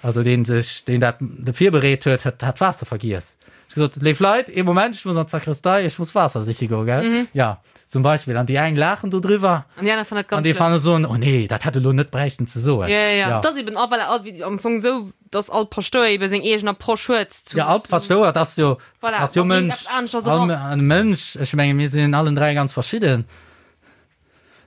also deen sech, deen dat virbereet huet, hat hat d'Waasser vergiess. Ech gesot, Léif Leit, ee Moment, ech muss an d'Sakristei, ech muss Waasser siche goen, gell? Mhm. Ja, zum Beispill. An déi eng laachen do driwwer. An déi aner fannen dat ganz An déi fannen soen, oh nee, dat hätt e lo net bräichten ze soen. Ja, ja, ja. Dat ass eben, ah, voilà, ah, wéi am Fong esou, dass all Paschtouer eben seng eegen Approche huet zu. Ja, all Paschtouer, dat ass jo, voilà, ass jo man bréngt Mënsch. eppes aneschters All eran. Mënsch, ech menge mir sinn allen 3 ganz verschidden.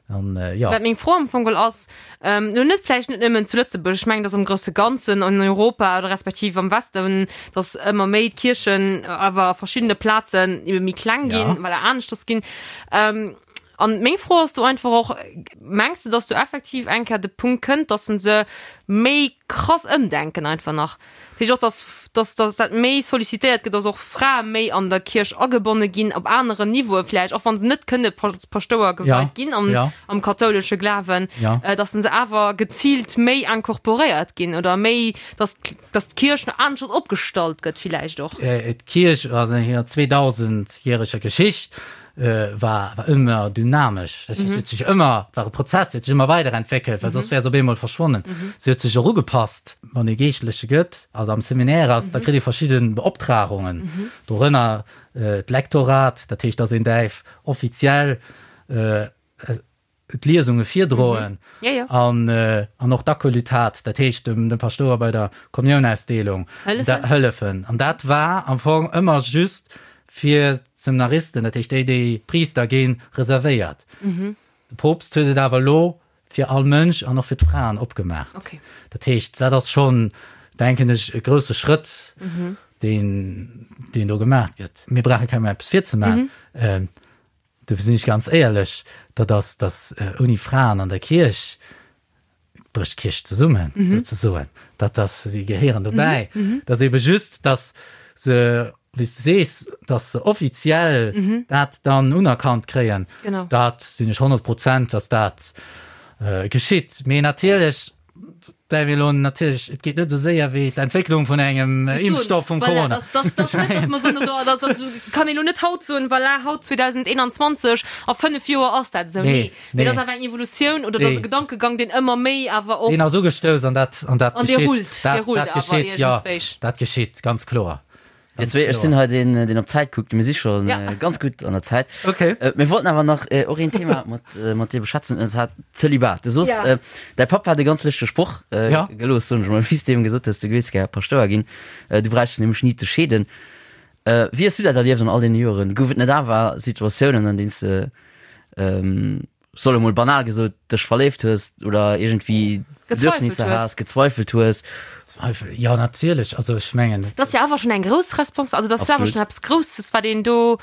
An jo. Wat meng Fro am Fong geholl ass, elo net vläicht net nëmmen zu Lëtzebuerg, ech mengen, dass am grousse Ganzen an Europa oder respektiv am Westen, dass ëmmer méi d'Kierchen awer a verschiddene Plazen ebe méi kleng ginn, well aneschters ginn. An meng Fro ass do einfach och, Mengs de, dass do effektiv eng Kéier de Punkt kënnt, dass se se méi krass ëmdenken einfach nach? Dat heescht och, dass, dass, dass dat méi sollicitéiert gëtt, dass och Frae méi an der Kierch agebonne ginn, op aneren Niveaue vläicht, och wa se net kënne Paschtouer geweit ginn am, am kathoulesche Glawen, dass se awer geziilt méi incorporéiert ginn oder méi, dass, dass d'Kierch nach aneschters opgestallt gëtt villäicht och. D'Kierch a senger 2000-järeger Geschicht war war ëmmer dynamesch. Dat heescht, se huet sech ëmmer, war e Prozess, se huet sech ëmmer weiderentwéckelt, well soss wär se op eemol verschwonnen. Se huet sech och ugepasst. Wann ee Geeschtleche gëtt, also am Seminaire ass, da kritt ee verschidde Beoptragungen, dorënner d'Lektorat, dat heescht, dass een däerf offiziell d'Liesunge virdroen an an och d'Akolytat, dat heescht dem dem Paschtouer bei der Kommiounausdeelung hëllefen. An dat war am Fong ëmmer just fir d'Seminaristen, dat heescht déi, déi Priister ginn, reservéiert. De Poopst huet et awer elo fir all Mënsch an och fir d'Fraen opgemaach. Dat heescht, dat ass schonn, denken ech, e grousse Schrëtt, deen deen do gemaach gëtt. Mir brauche kengem eppes virzemaachen. Dofir sinn ech ganz éierlech, dat ass, datt ouni Fraen an der Kierch brécht d'Kierch zesummen, souzesoen. Dat ass, si gehéieren dobäi. Dat ass ebe just, datt se, wéi s de sees, datt se offiziell dat dann unerkannt kréien. Dat sinn ech 100 Prozent, datt dat geschitt. Mee natierlech Däerf elo natierlech, et geet net esou séier wéi d'Entwécklung vun engem Impfstoff vum Corona. Voilà, dass, dass, dass net, dass mer soen, do, dat, dat kann een elo net haut soen, voilà, haut 2021, a 5 Joer ass dat esou. Nee, mee dat ass awer eng Evolutioun oder dat ass e Gedankegang, deen ëmmer méi awer och. Deen ass ugestouss an dat, an dat An dee geschitt. rullt, dee Dat, rullt dat awer geschitt, jo, iergendswéi. dat geschitt, ganz kloer. Dir zwee, ech sinn hei deen, deen op d'Zäit kuckt. Mir si scho Ja. ganz gutt an der Zäit. Okay. Mir wollten awer nach och een Thema mat, mat dir beschwätzen, an dat Zölibat. Du soos, Ja. däi Papp hat e ganz lëschtege Sproch Ja. gelooss, soen ech mol, wéi s du him gesot hues, du géifs gär Paschtouer ginn, du bräichts nämlech ni ze scheeden. Wéi hues du dat erlieft an all deene Joren? Gouf et net awer Situatiounen, an deenen s de, soll emol banal gesot, dech verléift hues oder iergendwéi Bedürfnisser has, gezweifelt hues? Zweifel, jo natierlech, also ech mengen. Dat ass jo awer schonn eng grouss Respons-, also dat ass jo awer schonn eppes Grousses, wat een do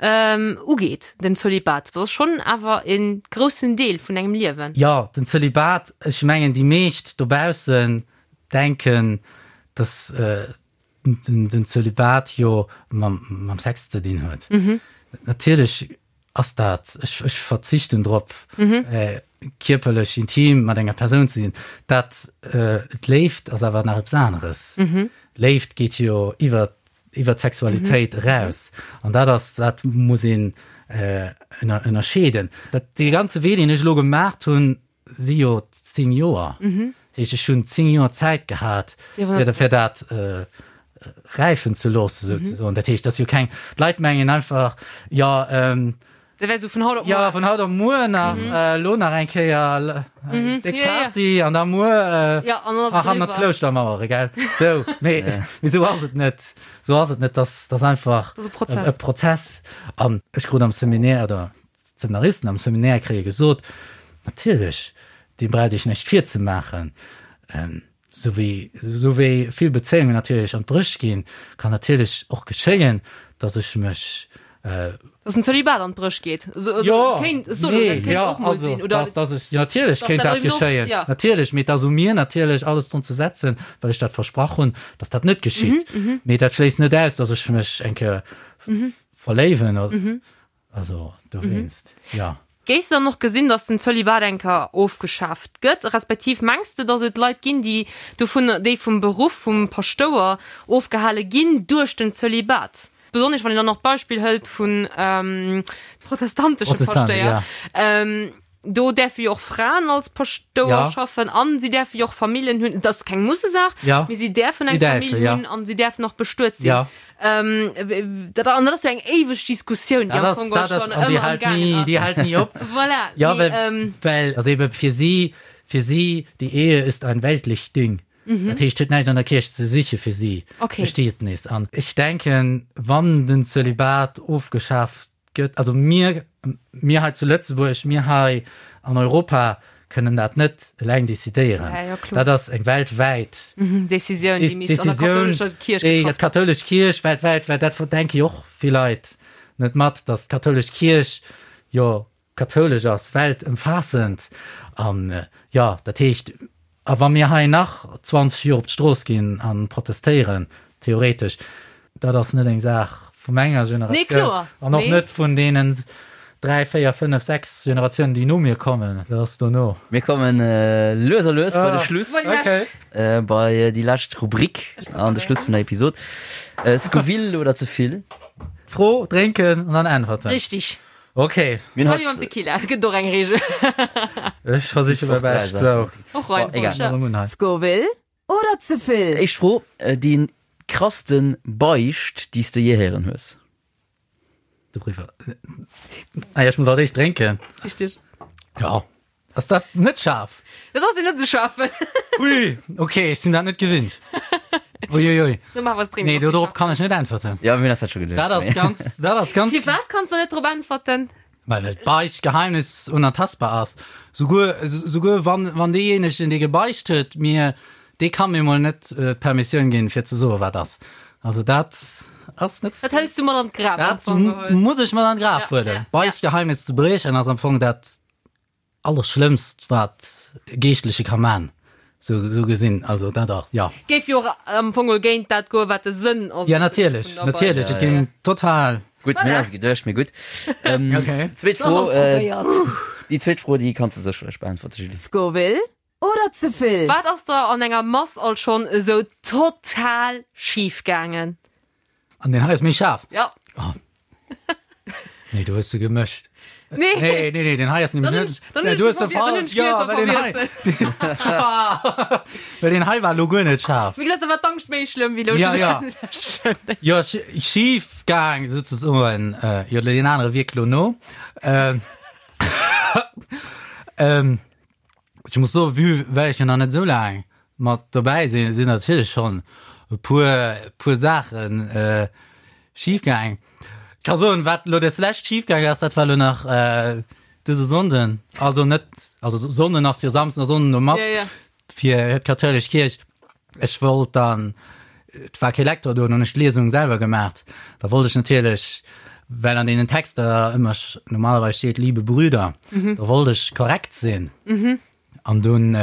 ugeet, den Zölibat. Dat ass schonn awer e groussen Deel vun engem Liewen. Jo, den Zölibat, ech mengen déi meescht dobaussen denken, dass den Zölibat jo mam Sex ze dinn huet. Natierlech ass dat, ech, ech verzichten drop, kierperlech intim mat enger Persoun ze sinn. Dat, d'Léift ass awer nach eppes aneres. D'Léift geet jo iwwer, iwwer d'Sexualitéit eraus. An dat ass, dat muss een ënnerscheeden. Dat, dee ganze Wee, deen ech elo gemaacht hunn, si jo 10 Joer. Dat heescht, ech hunn 10 Joer Zäit gehat, fir, fir dat räifen ze loossen, souzesoen. Dat heescht, dat ass jo keng, d'Leit mengen einfach, jo, Dat wär esou vun haut op muer. Jo, vun haut op muer nach, elo nach eng Kéier eng déck Party an da muer hannert d'Klouschtermauere, gell? Sou, mee, mee sou ass et net. Sou ass et net. Dat ass einfach e Prozess. An ech krut am Seminaire, oder D'Seminaristen am Seminaire kréie gesot, natierlech, dir braucht iech näischt virzemaachen, esou wéi, esou wéi vill Bezéiungen natierlech an d'Bréch ginn, kann natierlech och geschéien, datt ech mech. Datt den Zölibat an d'Bréch geet. Jo, Kéint, nee, kéint jo, och mol also, sinn, oder? datt, datt ech, jo, natierlech Datt kéint dat dat eben och, geschéien, ja. natierlech, mee et ass u mir natierlech alles drun ze setzen, well ech dat versprach hunn, datt dat net geschitt. Mee dat schléisst net aus, datt ech mech eng Kéier verléiwen oder. Also dowéinst, jo. Géifs de dann och gesinn, datt den Zölibat eng Kéier ofgeschaaft gëtt? Respektiv mengs de, datt et Leit ginn, déi dovun, déi vum Beruff vum Paschtouer ofgehale ginn duerch den Zölibat? Besonnesch wann een dann och d'Beispill hëlt vun protestantesche Protestant, Paschtéier. ja. Do däerfe jo och Fraen als Paschtouer Ja. schaffen an si däerfe jo och Familljen hunn. Dat ass keng Mussesaach, Ja. mee si däerfen Si eng däerfen, Famill ja. hunn an si däerfen och bestuet sinn. Ja. Ähm, dat, an dat ass jo eng éiweg Diskussioun, déi Dat am ass, Fong dat ass, schonn an déi ëmmer am hält gaangen ni, ass. déi hält ni op. Voilà, Ja, mee, well, ähm, well, also ebe fir si, fir si, die Ehe ist ein weltlich Ding. Dat heescht, huet näischt an der Kierch ze siche fir si. Okay. Bestietnis. An ech denken, wann den Zölibat ofgeschaaft gëtt, also mir, mir hei zu Lëtzebuerg, mir hei. an Europa kënnen dat net eleng decidéieren. Ja, ja, kloer. Dat ass eng weltwäit Decisioun, déi misst an der Decisioun, kathoulescher Kierch déi getraff ginn. d'kathoulesch Kierch weltwäit, well dat denke jo och vill Leit net mat, datt d'kathoulesch Kierch jo kathoulesch ass, weltëmfaassend. An jo, dat heescht, a wa mir hei nach 20 Joer op d'Strooss ginn a protestéieren, theoretesch, dat ass net eng Saach vu menger Nee, Generatioun kloer. an och Nee. net vun deenen dräi, véier, fënnef, sechs Generatiounen, déi no mir kommen. Dat ass dono. Mir kommen lues a lues bei de Schluss, Bei déi lescht. bei déi lescht Rubrik an de Schluss vun der Episod. Scoville oder ze vill? Fro, drénken an dann äntwerten. Richtig. Ok. Mir hunn Hei mam haut Tequila, et gëtt och eng Regel. Ech versiche mäi Bescht. Sou. Och rein, Bon, egal. ja. Scoville oder ze vill? Éischt Fro, Déi krassten Beicht, déi s de jee héieren hues? De Briefer. Ah ja, ech muss als éischt drénken. Richtig. Ja. Ass dat net schaarf? Dat ass net sou schaarf. Ui, okay, ech sinn dat net gewinnt. Uiuiui. Nee, Nee, dorop kann ech net äntwerten. Ja, mir hunn eis dat scho geduecht. Dat ass ganz, dat ass ganz. Firwat kanns de net drop äntwerten? Well et Beichtgeheimnis unantastbar ass. Souguer, souguer wann, wann deejéinegen, dee gebeicht huet, mir, dee ka mir mol net d'Permissioun ginn, fir ze soen, wat ass. Also dat ass net. Dat hëls du mat an d'Graf. Dat muss ech mat an d'Graf huelen. Beichtgeheimnis ze briechen ass am Fong dat Allerschlëmmst wat e Geeschtleche ka man, sou sou gesinn, also dat ass, jo. Géif jo och am Fong geholl géint dat goen, wat de Sënn ass. Ja natierlech, natierlech, et géing total. Gutt, mir ass geduecht, mee gutt. Okay. Zweet Fro, déi zweet Fro, déi kanns de sécherlech beäntwerte, Julie. Scoville oder ze vill? Wat ass der an enger Mass alt schonn esou total schif gaangen? An deen hei ass méi schaarf. Ja. Oh. Nee, du hues se gemëscht. Nee. Nee, nee, nee, den hei ass nämlech Dann net. dann Nee, du hues se falsch. Ja, well den hei. Well den hei war lo guer net schaarf. Wéi gesot, da war d'Angscht méi schlëmm wéi lo. Ja, ja. Jo, schif gaang souzesoen. Jo, deen anere wierkt lo no. Ähm, ähm, Ech muss soen, vue well ech jo nach net esou laang mat dobäi sinn, sinn natierlech schonn e puer, puer Saachen schif gaang. Ech ka soen, wat elo des lescht schif gaang ass, dat war elo nach dëse Sonnden, also net, also Sonnden ass jo Samsden a Sonnden elo mat fir d'kathoulesch Kierch. Ech wollt dann, et war kee Lektor do, dann hunn ech d'Liesung selwer gemaacht. Da wollt ech natierlech, well an deenen Texter ëmmer normalerweis steet liebe Brüder, da wollt ech korrekt sinn. An dunn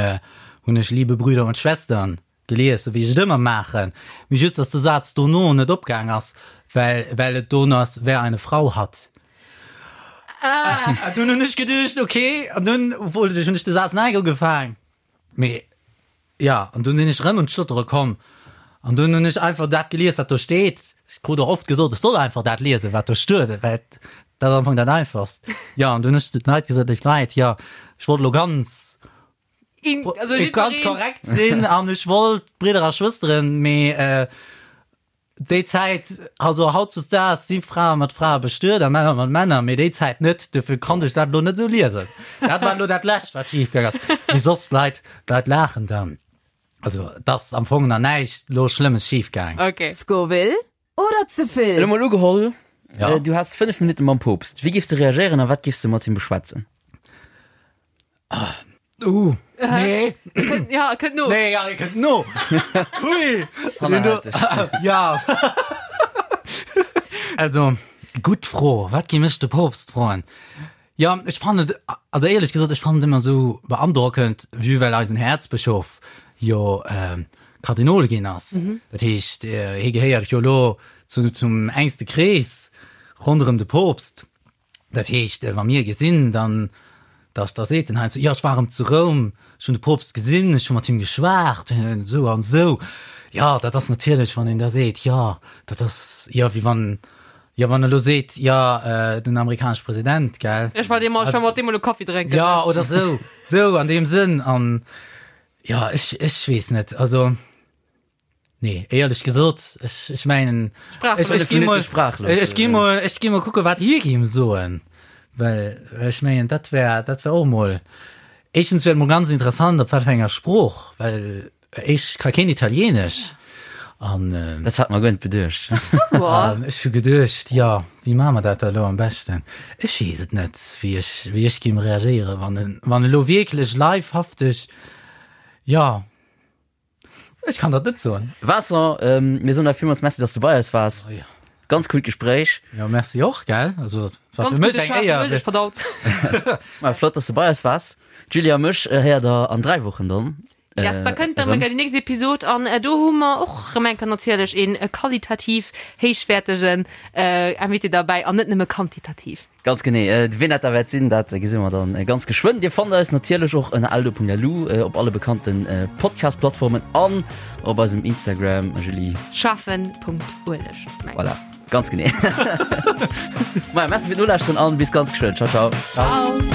hunn ech liebe Brüder und Schwestern gelies, sou wéi ech et ëmmer maachen. Mee just, dass de Saz dono net opgaang ass, well, well et do ass, wer eine Frau hat. Ah. Dunn hunn ech geduecht, okay, an dunn wollt ech, hunn ech de Saz nei ugefaang. Mee jo, an dunn sinn ech erëm un d'Stottere komm an dunn hunn ech einfach dat gelies, wat do steet. Ech krut och oft gesot, ech soll einfach dat liesen, wat do stuet, well dat ass am Fong dat Einfachst. Jo, an dunn hunn ech zu den Leit gesot, Léif Leit, jo, ech wollt elo ganz, In, also ganz jiddwereen. korrekt sinn an ech wollt Bridder a Schwësteren, mee Déi Zäit, also hautzesdaags si Frae mat Frae bestuet a Männer mat Männer, mee déi Zäit net, dofir konnt ech dat elo net esou liesen. Dat war elo dat Lescht, wat schif gaang ass. Mee soss, d'Leit, d'Leit laachen dann. Also et ass am Fong nach näischt elo Schlëmmes schif gaang. Okay. Scoville oder ze vill? Elo mol ugeholl, Ja. du häss 5 Minutte mam Poopst. Wéi géifs de reagéieren a wat géifs de mat him beschwätzen? Uh, nee. Ja, kënnt no. Nee, ja, kënnt no. Hui. Ja. Also, gutt Fro. Wat gi mech de Poopst froen? Ja, ech fannen et, also éierlech gesot, ech fannen et ëmmer esou beandrockend, vue well eisen Häerzbëschof jo äh, Kardinol ginn ass. Mhm. Dat heescht, äh, hie gehéiert jo lo zu, zum engste Krees ronderëm de Poopst. Dat heescht, wa mir e gesinn, dann, da, da seet en heiansdo, jo, ech war erëm zu Roum, ech hunn de Poopst gesinn, ech hu mat him geschwat, esou an esou. Jo, dat ass natierlech, wann een da seet, jo, dat ass, jo, wéi wann, jo, wann e lo seet, jo, den amerikanesche President, gell. Ech war deemol, ech war mat deem elo Kaffi drénken. Jo, oder esou, esou an deem Sënn. An jo, ech, ech weess net, also. Nee, éierlech gesot, ech, ech mengen, ech, ech gi mol, ech gi mol, ech gi mol kucke wat hie géing soen, well, well ech mengen, dat wär, dat wär och mol, éischtens wär et mol ganz interessant, op wat fir enger Sprooch, well ech ka keen Italienesch. An Dat hat mer guer net beduecht. An ech hu geduecht, jo, wéi maache mer dat da elo am beschten? Ech weess et net, wéi ech, wéi ech géing reagéieren, wann en, wann elo wierklech livehafteg, jo, ech kann dat net soen. Vincent, mir soen der villmools Merci, dass du bei eis waars. Oh jo. Ganz coolt Gespréich. Jo, merci och, gell? Also, war Ganz fir mech gudde eng schaarfe Éier. Mëllech verdaut. Ma flott, dass du bei eis waars. D'Julie a mech héiert der an 3 Wochen dann. Yes, da kënnt dann déi nächst Episod an do hu mer och rëm eng Kéier natierlech een qualitativ héichwäertegen Invité derbäi an net nëmme quantitativ. Ganz genee. Wien dat da wäert sinn, dat gesi mer dann ganz geschwënn. Dir fannt eis natierlech och ënner eldo.lu, op alle bekannte Podcast-Plattformen an op eisem Instagram, Julie. Schaffen.ueleg. Voilà, ganz genee. Maja, merci fir d'Nolauschteren an bis ganz geschwënn. Ciao, ciao. Ciao.